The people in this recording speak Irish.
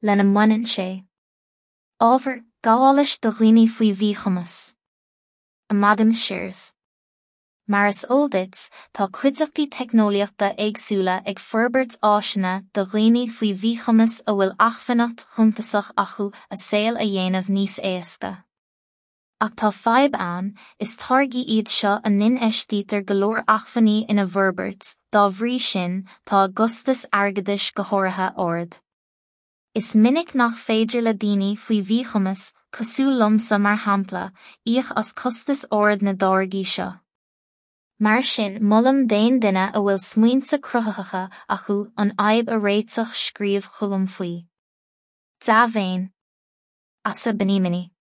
Lena mbaineann sé. Ábhar gabhálais do dhaoine faoi mhíchumas. Amadaim Shears. Mar is eol duit, tá cuideachtaí teicneolaíochta éagsúla ag forbairt áiseanna do dhaoine faoi mhíchumas a bhfuil acmhainneacht shuntasach acu a saol a dhéanamh níos éasca. Ach tá fadhb ann, is táirgí iad seo a n-infheistítear go leor acmhainní ina bhforbairt, dá bhrí sin, tá a gcostas airgeadais go háirithe ard. Is minic nach féidir le daoine faoi mhíchumas, cosúil liomsa mar shampla, íoc as costas ard na dtáirgí seo. Mar sin, molaim d'aon duine a bhfuil smaointe cruthaitheacha acu an fhadhb a réiteach scríobh chugam faoi. Dea-mhéin. Asa Benimini.